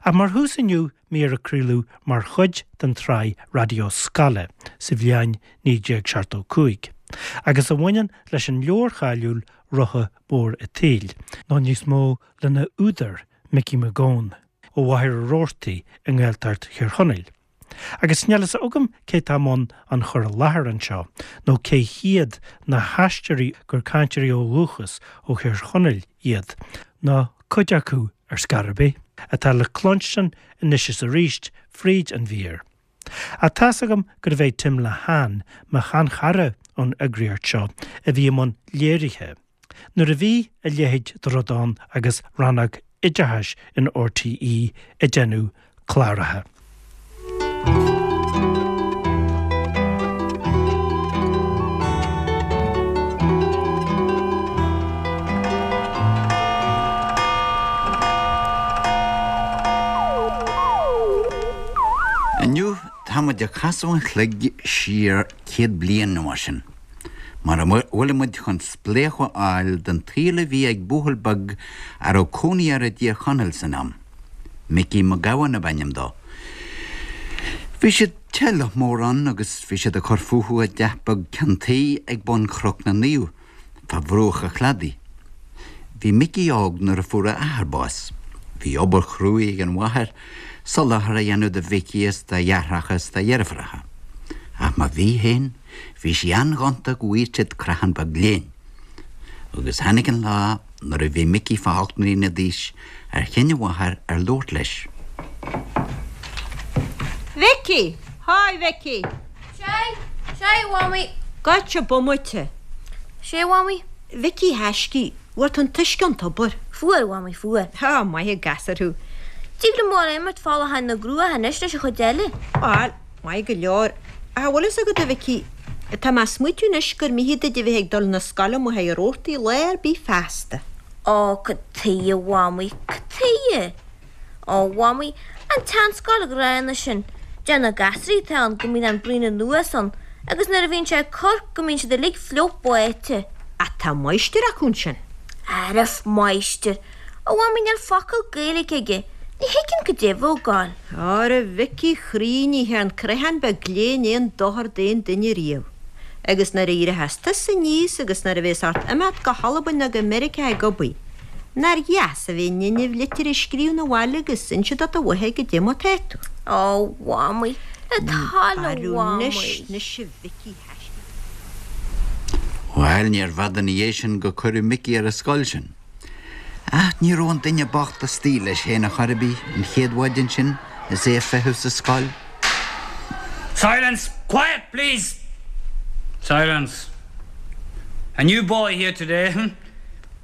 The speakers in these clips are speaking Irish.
Ach mar thús inniu, mír a craoladh mar chuid den tsraith Raidió Scoile sa bhliain 1975, agus a bhaineann leis an leabhar cháiliúil Rotha Mór a' tSaoil, nó níos mó lena údar, Micí Mac Gabhann, ó Mhachaire Rabhartaigh i nGaeltacht Thír Chonaill. Agus níl fhios agam cé tá i mbun an chur i láthair anseo, nó cé hiad na haisteoirí gur cainteoirí ó dhúchas ó Thír Chonaill iad, nó cuid acu ar scor ar bith, atá le cluinstin anois is arís fríd an mhír. Ach tá's agam gurbh é Tim Lehane, mo sheanchara ón eagraíocht seo, a bhí i mbun léirithe. Nuair a bhí a leithéid de rud ann agus rannóg oideachais in RTÉ ag déanamh cláracha. Inniu tá muid ag casadh an chloig siar 100 bliain nó mar sin, mar a bhfuilimid chun spléachadh a fháil den tsaol a bhí ag buachaill beag a raibh cónaí air i dTír Chonaill san am. Micí Mac Gabhann ab ainm dó. Bhí siad teaghlach mór ann agus bhí siad ag cur fúthu i dteach beag ceann tuí ag bun Chnoc na Naomh, fá bhruach an chladaigh. Bhí Micí óg nuair a fuair a athair bás. Bhí obair chruaidh ag an mháthair, soláthar a dhéanamh do Mhicí is dá dheartháireacha is dá dheirfiúracha. Ach má bhí féin, bhí sí an-ghonta go bhfaigheadh siad creachán beag léinn. Agus tháinig an lá nuair a bhí Micí fá ocht mbliana d'aois ar chinn a mháthair ar labhairt leis. Mhicí! Haigh, Mhicí! Sea, sea, a Mhamaí. Gabhsa bomaite. Sea, a Mhamaí. Mhicí thaiscidh, bhfuair tú an t-uisce ón tobar? Fuair, a Mhamaí, fuair. Tá, maith an gasúr thú. Tig liom a dhul ag imirt fá láthair na gcruach anois leis an chuid eile. Bhail, maith go leor. Ach an bhfuil fhios agat, a Mhicí, tá mé ag smaoitiú anois gur mithid duit a bheith ag dul 'na scoile i Machaire Rabhartaigh lá ar bith feasta. Ó, cad tuighe, a Mhamaí, cad tuighe? Ó, a Mhamaí, an tseanscoil ghránna sin, deir na gasraí atá ann go mbíonn an braon anuas ann agus nuair a bhíonn sé ag cur go mbíonn siad uilig fliuch báite. Ach tá máistir acu ansin. Arbh máistir? A Mhamaí, níl focal Gaeilge aige, ní thuigim cad é a bheadh ag gabháil. Óra Mhicí chroí, ní thearn creachán beag léinn aon dochar d'aon duine riamh. Agus nuair a éireochas tusa aníos agus nuair a bhéas ort imeacht go hAlbain nó go Meiriceá ag obair, nár dheas a bheith in innimh litir a scríobh 'na bhaile agus inse do do mháthair goidé mar tá tú. Ó, Mhamaí, le do thoil a Mhamaí. Anois, anois a Mhicí thaiscidh. Bhail, níorbh fhada ina dhiaidh sin go cuireadh Micí ar an scoil sin. Ach ní raibh an duine bocht istigh leis féin ar chor ar bith an chéad mhaidin sin is é ag feitheamh sa scoil. Silence! Quiet, please! Silence! A new boy here today, hm?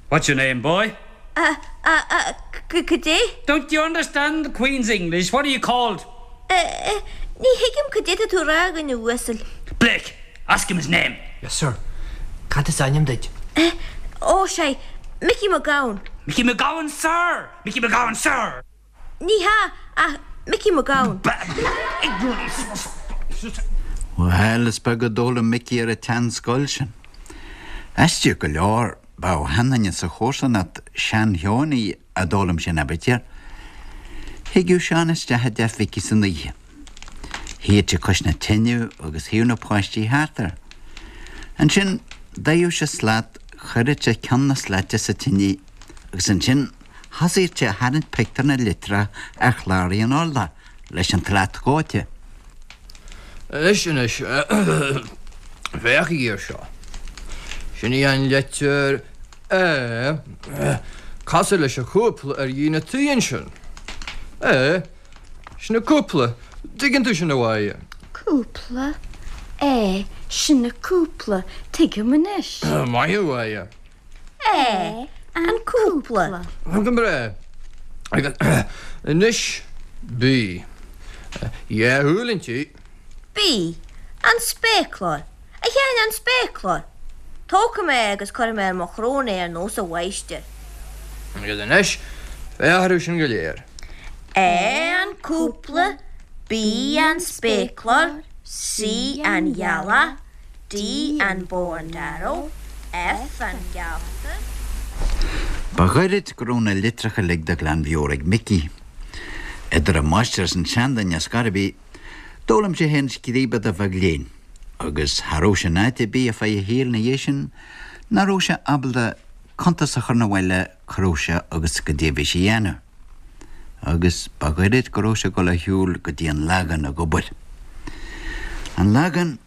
What's your name, boy? A, a, a, c, cad é? Don't you understand the Queen's English? What are you called? A, a, ní thuigim cad é tá tú a rá, a dhuine uasail. Blake! Ask him his name. Yes, sir. Cad is ainm duit? Eh, ó, sé, Micí Mac Gabhann. Micí Mac Gabhann, sir! Micí Mac Gabhann, sir! Ní hea, ach Micí Mac Gabhann. Bhuel, is beag a d'fhoghlaim Micí ar an tseanscoil sin. Aisteach go leor, ba ó sheanduine sa chomharsanacht, sean-Sheoiní, a d'fhoghlaim sé an aibítir. Thigeadh Seán isteach i dteach Mhicí san oíche. Shuíodh sé cois na teineadh agus shuíodh na páistí thart air. Ansin d'fhaigheadh sé slat, chuireadh sé ceann na slaite sa tinidh agus ansin thosaíodh sé a tharraingt pictiúr na litreach ar chláraí an urláir leis an tslat dhóite. Anois, anois, féachaigí air seo. Sin í an leitir A. Cosúil leis an chúpla ar dhíon an tí ansin. A. Sin an cúpla. Tuigeann tú sin, a Mháire? Cúpla? A, Sin an cúpla. Tuigim anois. Maith thú, a Mháire. A, An cúpla. Go breá. Agus anois B. Dhá shúil inti. B, An spéaclár. A Sheáin, an spéaclár! Tógfaidh mé é agus cuirfidh mé ar mo shrón é ar nós an mháistir. Agus anois, féach orthu sin go léir. A, an cúpla, B, an spéaclár, C, an ghealach, D, an bow and arrow, F, an geallta. Ba ghoirid go raibh na litreacha uilig de ghlanmheabhair ag Micí. Idir an máistir is an seanduine ar scor ar bith, d'fhoghlaim sé féin scríobadh de bheag léinn, agus cha raibh sé in áit ar bith ar feadh a shaoil ina dhiaidh sin nach raibh sé ábalta cuntas a chur 'na bhaile cá raibh sé agus goidé a bhí sé a dhéanamh. Agus ba ghoirid go raibh sé ag dul ar shiúl go dtí an Lagán ag obair. An Lagán,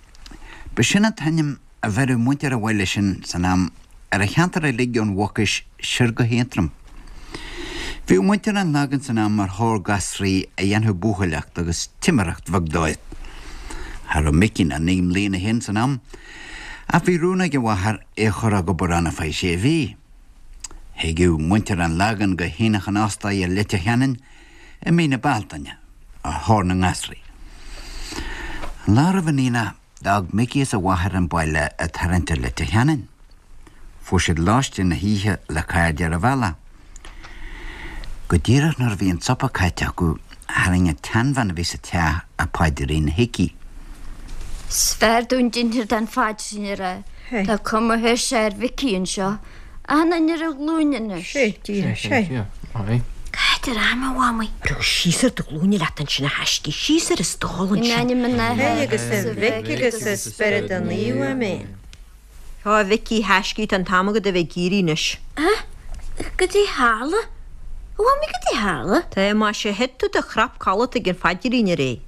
b'shin an t-ainm a bheireadh muintir an bhaile sin san am ar an cheantar uilig ón Mhucais siar go hAontroim. Bhíodh muintir an Lagáin san am ar thóir gasraí a dhéanfadh buachailleacht agus timireacht bheag dóibh. Cha raibh Micí ach 9 mbliana féin san am, ach bhí rún ag a mháthair é a chur ag obair ann ar feadh sé mhí. Thigeadh muintir an Lagáin go hAonach an Óstaigh i Leitir Ceanainn i mí na Bealtaine ar thóir na ngasraí. An lá roimh an aonach D'fhág Micí is a mháthair an baile ag tarraingt ar Leitir Ceanainn. Fuair siad lóistín na hoíche le cairde ar an bhealach. Go díreach nuair a bhí an supar caite acu, tharraing an tseanbhean a bhí sa teach a paidrín chuici. 'S fearr dúinn d'innseacht an phaidrín a rá. Tá cuma thuirse ar Mhicí anseo. Achan duine ar a ghlúine anois. Sé, díreach, sé. Cá fhad ar am, a Mhamaí? Ró síos ar do ghlúine leat ansin a thaiscidh, síos ar an stól In ansin. ainm an Athar Hé agus is a an Mhic Mhic agus agus a an Spiorad Spioraid an Naoimh. Naomh, Amen. Ó a Mhicí thaiscidh, tá an t-am agat a bheith ag éirí anois. A? Goidé tharla? A Mhamaí, goidé tharla? Tá, maise, thit tú de chrap codlata ag an phaidrín aréir.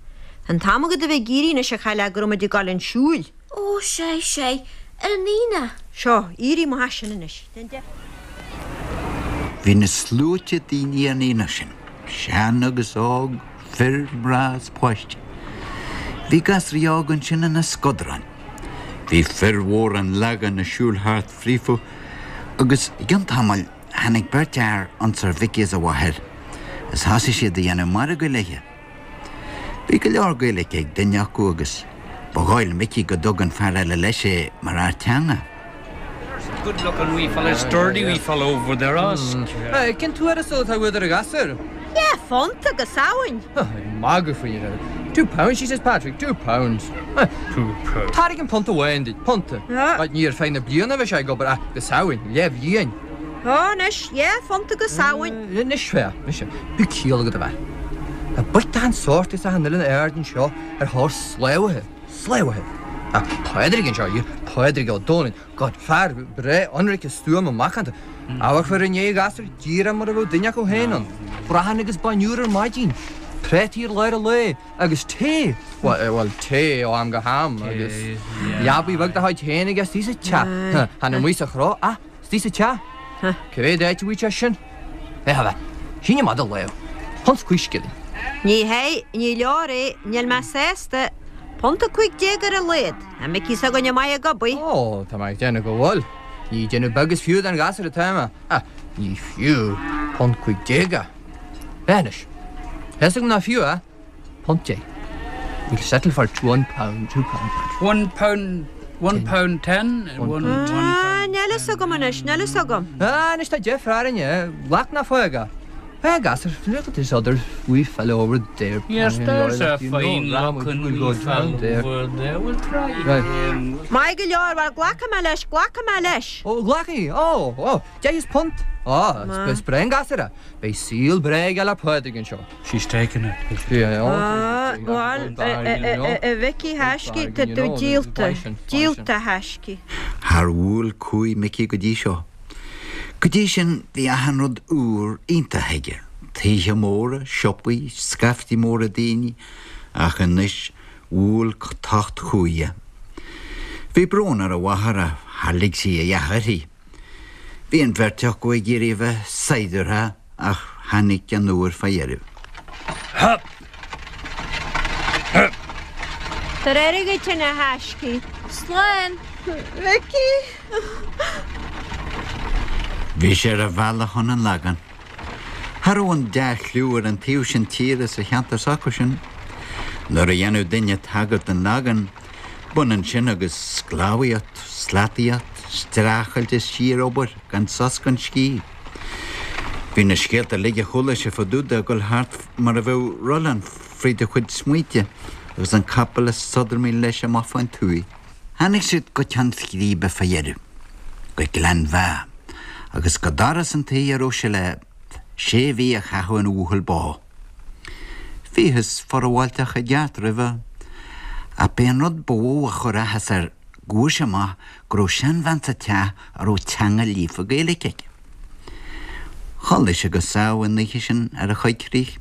Tá an t-am agat a bheith ag éirí anois a chailleach go raibh muid ag dul chun siúil. Ó, sea, sea, ar an aonach. Seo, éirigh amach as sin anois. Déan deifir. Bhí na sluaite daoine ar an aonach sin, sean agus óg, fir, mná is páistí. Bhí gasraí óga ansin ina scodráin. Bhí fir mhóra an Lagáin ag siúl thart fríofa agus i gcionn tamaill tháinig beirt fhear ionsar Mhicí is a mháthair is thosaigh siad a dhéanamh margaidh léithe. Bhí go leor Gaeilge ag duine acu agus ba dhóigh le Micí go dtug an fear eile leis é mar fhear teanga. Good looking wee fella, sturdy wee fella over there, ask. Cén tuarastal atá uait ar an ghasúr? Dhá phunt go Samhain. Ag magadh faoi é. £2, she says, Patrick, £2. £2. Tairgim punt amháin duit, punta. Ní ar feadh na bliana a bheidh sé ag obair ach go Samhain, leathbhliain. Ó, anois, dhá phunt go Samhain. Anois, féach, anois, bíodh ciall agat a bhean. Tá boic d'achan sórt as achan oileán aird anseo ar thóir sclábhaithe, sclábhaithe. Tá Pádraig anseo, yeah, Pádraig Ó Dónaill, God, fear breá ionraice stuama macánta. Amharcfar i ndiaidh a ghasúir díreach mar a bheadh duine acu féin ann. Brachán agus bainne úr ar maidin, prátaí ar lár an lae agus tae, bhuel, tae ó am go ham agus leabaidh bheag dá chuid féin aige istigh sa teach, chan amuigh sa chró ach Istigh sa teach? Cá mhéad áit a bhfuil sé sin? Féach a bhean. Sín amach do lámh. Punt 's 5 scilling. Ní hea, ní leor é, níl mé sásta. Punt 15 ar a laghad. Tá Micí s'againne maith ag obair. Ó, tá mé ag déanamh go bhfuil. Ní ag déanamh beag is fiú don ghasúr atá mé. Ach ní fiú punt 15 é. Féach anois. Tá fhios agam nach fiú é. Punt 10. We'll settle for £1, £2. £1, £1 ten, one, one Ah, níl fhios agam anois, níl fhios agam. Ah, anois tá deifir orainne, glac nó fág é. Fág as, look at this other wee fellow over there. Yes, there's a fine looking wee fellow over there, we'll try him. Maith go leor, bhuel, glacfaidh mé leis, glacfaidh mé leis. Ó, glacfaidh, ó, ó, deich is punt. Ó, is breá an gasúr é. Beidh saol breá aige le Pádraig anseo. She's taken it. Ah, bhuel, a Mhicí thaiscidh, tá tú díolta, díolta a thaiscidh. Char bhuail cumhaidh Micí go dtí seo. Go dtí sin bhí achan rud úr iontach aige, tithe móra, siopaí, scaifte móra daoine, ach anois bhuail tocht cumhaidh é. Bhí brón ar a mháthair ach char lig sí a dhath uirthi. Bhí an bheirt acu ag iarraidh a bheith saighdiúrtha ach tháinig an uair fá dheireadh. Hup! Hup! Tar aire dhuit a thaiscidh. Slán! Mhicí! Bhí sé ar a bhealach chun an Lagáin. Cha raibh an dea-chliú ar an taobh sin tíre sa cheantar s'acusan. Nuair a dhéanadh duine tagairt don Lagán, B'ionann sin agus sclábhaíocht, slataíocht, streachailt is síor-obair gan sos gan scíth. Bhí na scéalta uilig a chuala sé fá dtaobh de ag dul thart mar a bheadh rollán fríd a chuid smaointe agus an capall ag sodramaíl leis amach fán tuaith. Tháinig siad go ceann scríbe fá dheireadh, go Gleann Mheá, agus go doras an tí a raibh sé le sé mhí a chaitheamh ina bhuachaill bó. Bhíothas forbháilteach i gceart roimhe, ach b'é an rud ba mhó a chuir áthas air go bhfuair sé amach go raibh seanbhean sa teach a raibh teanga líofa Gaeilge aici. Chodlaigh sé go sámh an oíche sin ar a choigcrích.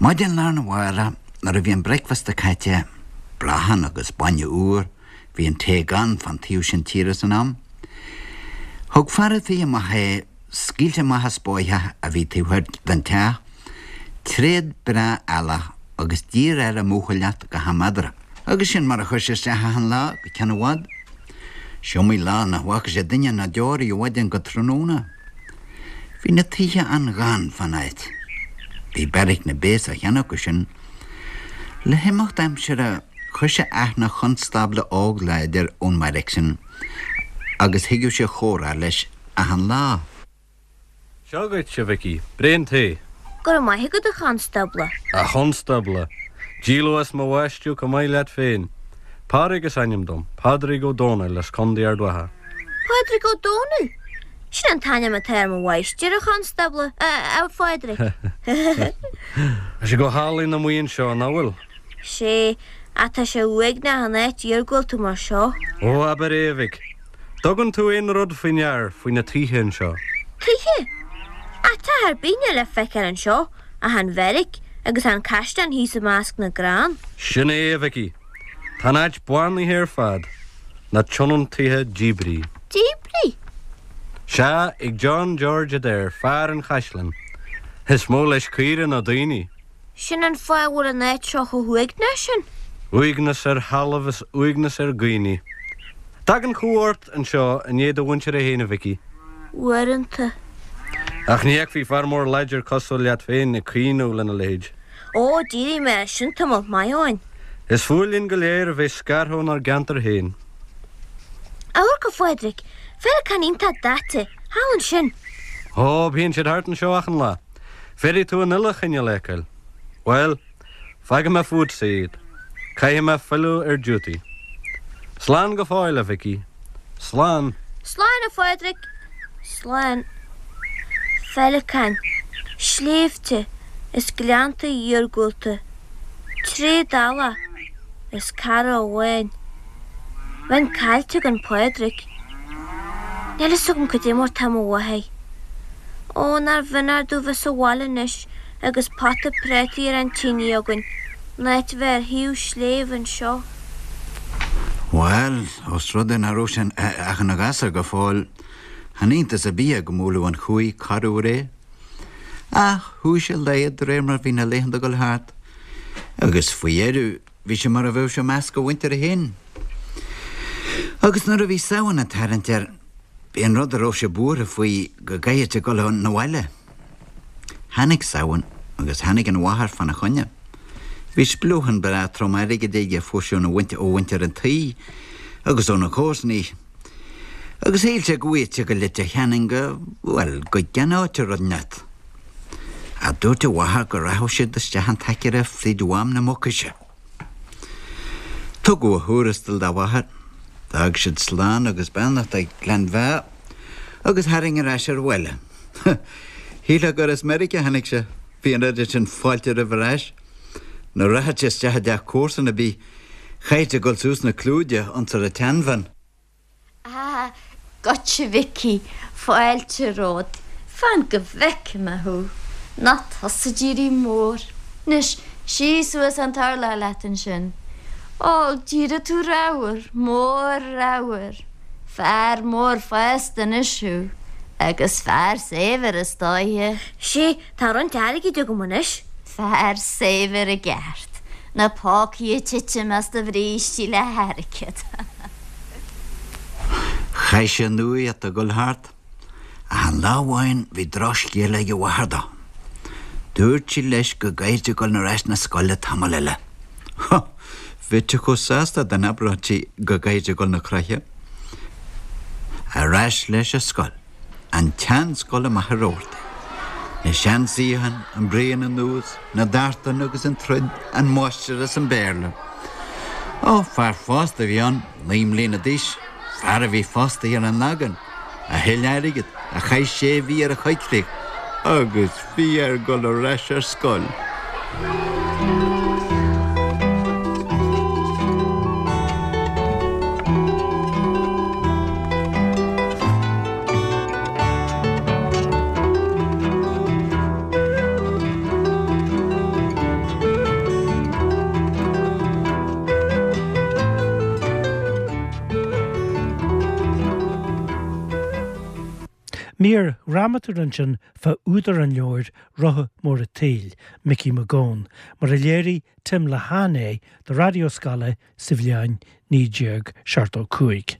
Maidin lá arna mhárach nuair a bhí an bricfeasta caite, brachán agus bainne úr, bhí an tae gann fán taobh sin tíre san am, thug fear a' tí amach é, scaoilte amach as bóitheach a bhí taobh thoir den teach, tréad breá eallach agus d'iarr air a mbuachailleacht go ham eadarthu. Agus sin mar a chuir sé isteach achan lá go ceann i bhfad. S'iomaí lá nach bhfaca sé duine ná deoraí ó mhaidin go tráthnóna. Bhí na tithe an-ghann fán áit. Bhí beairic na bpéas á cheannach acu sin. Le himeacht aimsire chuir sé aithne chonstábla óg láidir ón mbeairic sin agus thigeadh sé a chomhrá leis achan lá. Seo dhuit, a Mhicí, braon tae. Go raibh maith agat, a chonstábla. A chonstábla! Díol as mo bhaisteadh chomh maith leat féin. Pádraig is ainm dom, Pádraig Ó Dónaill as Contae Ard Mhacha. Pádraig Ó Dónaill? Sin an t-ainm atá ar mo mháistir, a chonstábla, a Phádraig. Tá sé go hálainn amuigh anseo, nach bhfuil? Sé, ach tá sé uaigneach an áit iargúlta mar seo. Ó, abair é, a mhic. Dtugann tú aon rud faoi ndear faoi na tithe anseo? Tithe? Ach teach ar bith níl le feiceáil anseo ach an bheairic agus an caisleán thíos i measc na gcrann. Sin é, a Mhicí. Tá an áit bánaithe ar fad, na tionóntaithe díbrithe. Díbrithe? Sea, ag John George Adair, fear an chaisleáin. Is mó leis caoire ná daoine. Sin an fáth a bhfuil an áit seo chomh huaigneach sin. Uaigneas ar thalamh is uaigneas ar dhaoine. Tagann cumha ort anseo i ndiaidh do mhuintire féin, a Mhicí. Uaireanta. Ach ní fheicfí fear mór láidir cosúil leat féin ag caoineadh lena leithéid. Ó, d'éirigh mé as sin tamall maith ó shin. Is fuath linn go léir a bheith scartha ónár gceantar féin. Amharc, a Phádraig, féileacáin iontach daite, thall ansin. Ó, bíonn siad thart anseo achan lá. Féadfaidh tú an uile chineál a fheiceáil. Bhuel, fágfaidh mé fútsa iad. Caithfidh mé filleadh ar duty. Slán go fóill, a Mhicí. Slán. Slán, a Phádraig. Slán. Féileacáin, sléibhte is gleannta iargúlta. Tréad eallach is cara amháin. Bheinn caillte gan Pádraig. Níl fhios agam cad é mar tá mo mháthair. Ó, nár bh'ionadh domh bheith sa bhaile anois agus pota prátaí ar an tine againn, in áit bheith ar thaobh sléibhe anseo. Bhuel, ós rud é nach raibh sé ach ina ghasúr go fóill, chan iontas ar bith é go mbuailfeadh an chumhaidh corruair é. Ach chuaigh sé i laghad de réir mar a bhí na laethanta ag dul thart, agus faoi dheireadh bhí sé mar a bheadh sé i measc a mhuintire féin. Agus nuair a bhí Samhain ag tarraingt air, b'é an rud a raibh sé buartha faoi go gcaithfeadh sé dul 'na bhaile. Tháinig Samhain agus tháinig an mháthair fána choinne. Bhí spleochán breá trom airgid aige a fuair sé óna ó mhuintir an tí agus ó na comharsanaí. Agus shíl sé go bhfaigheadh sé go Leitir Ceanainn go, bhuel, go gceannódh sé rud inteacht. Ach dúirt a mháthair go rachadh siad isteach an t-aicearra fríd Mhám na Mucaise. Tugadh a thuarastal dá mháthair. D'fhág siad slán agus beannacht ag Gleann Mheá agus tharraing ar ais ar bhaile. Shílfeá gur as Meiriceá a tháinig sé, bhí an oiread sin fáilte roimhe ar ais. Nuair a rachadh sé isteach i dteach comharsan ar bith, chaithfeadh sé dul suas na clúide ionsar an tseanbhean. Ah, goitse Mhicí, fáilte romhat, fan go bhfeice mé thú. Nach tusa ag éirí mór. Anois, suigh suas an t-urlár leat ansin. Ó, d'éirigh tú ramhar, mór ramhar. Fear mór fásta anois thú. Agus fear saibhir is dóiche. Sé, tá roinnt airgid agam anois. Fear saibhir i gceart. Na pócaí ag titim as do bhrístí le hairgead. Chaith sé an nuaíocht ag dul thart, ach an lá amháin bhí drochscéala ag a mháthair dó. Dúirt sí leis go gcaithfeadh sé dul ar ais 'na scoile tamall eile. Bheadh sé chomh sásta dá n-abródh sí go gcaithfeadh sé dul 'na croiche. Ar ais leis ar scoil. An tseanscoil amach i Rabhartaigh. Na seansuíocháin, an braon anuas, na dartanna agus an troid, an máistir as an Béarla. Ó, fear fásta a bhí ann, 9 mbliana d'aois, fear a bhí fostaithe ar an Lagan, a thuill airgead, a chaith sé mhí ar a choigcrích, agus bhí air dul ar ais ar scoil. Mír dhrámatúil ansin fá údar an leabhair Rotha Mór a' tSaoil, Micí Mac Gabhann, mar a léirigh Tim Lehane é do Raidió Scoile sa bhliain 1975.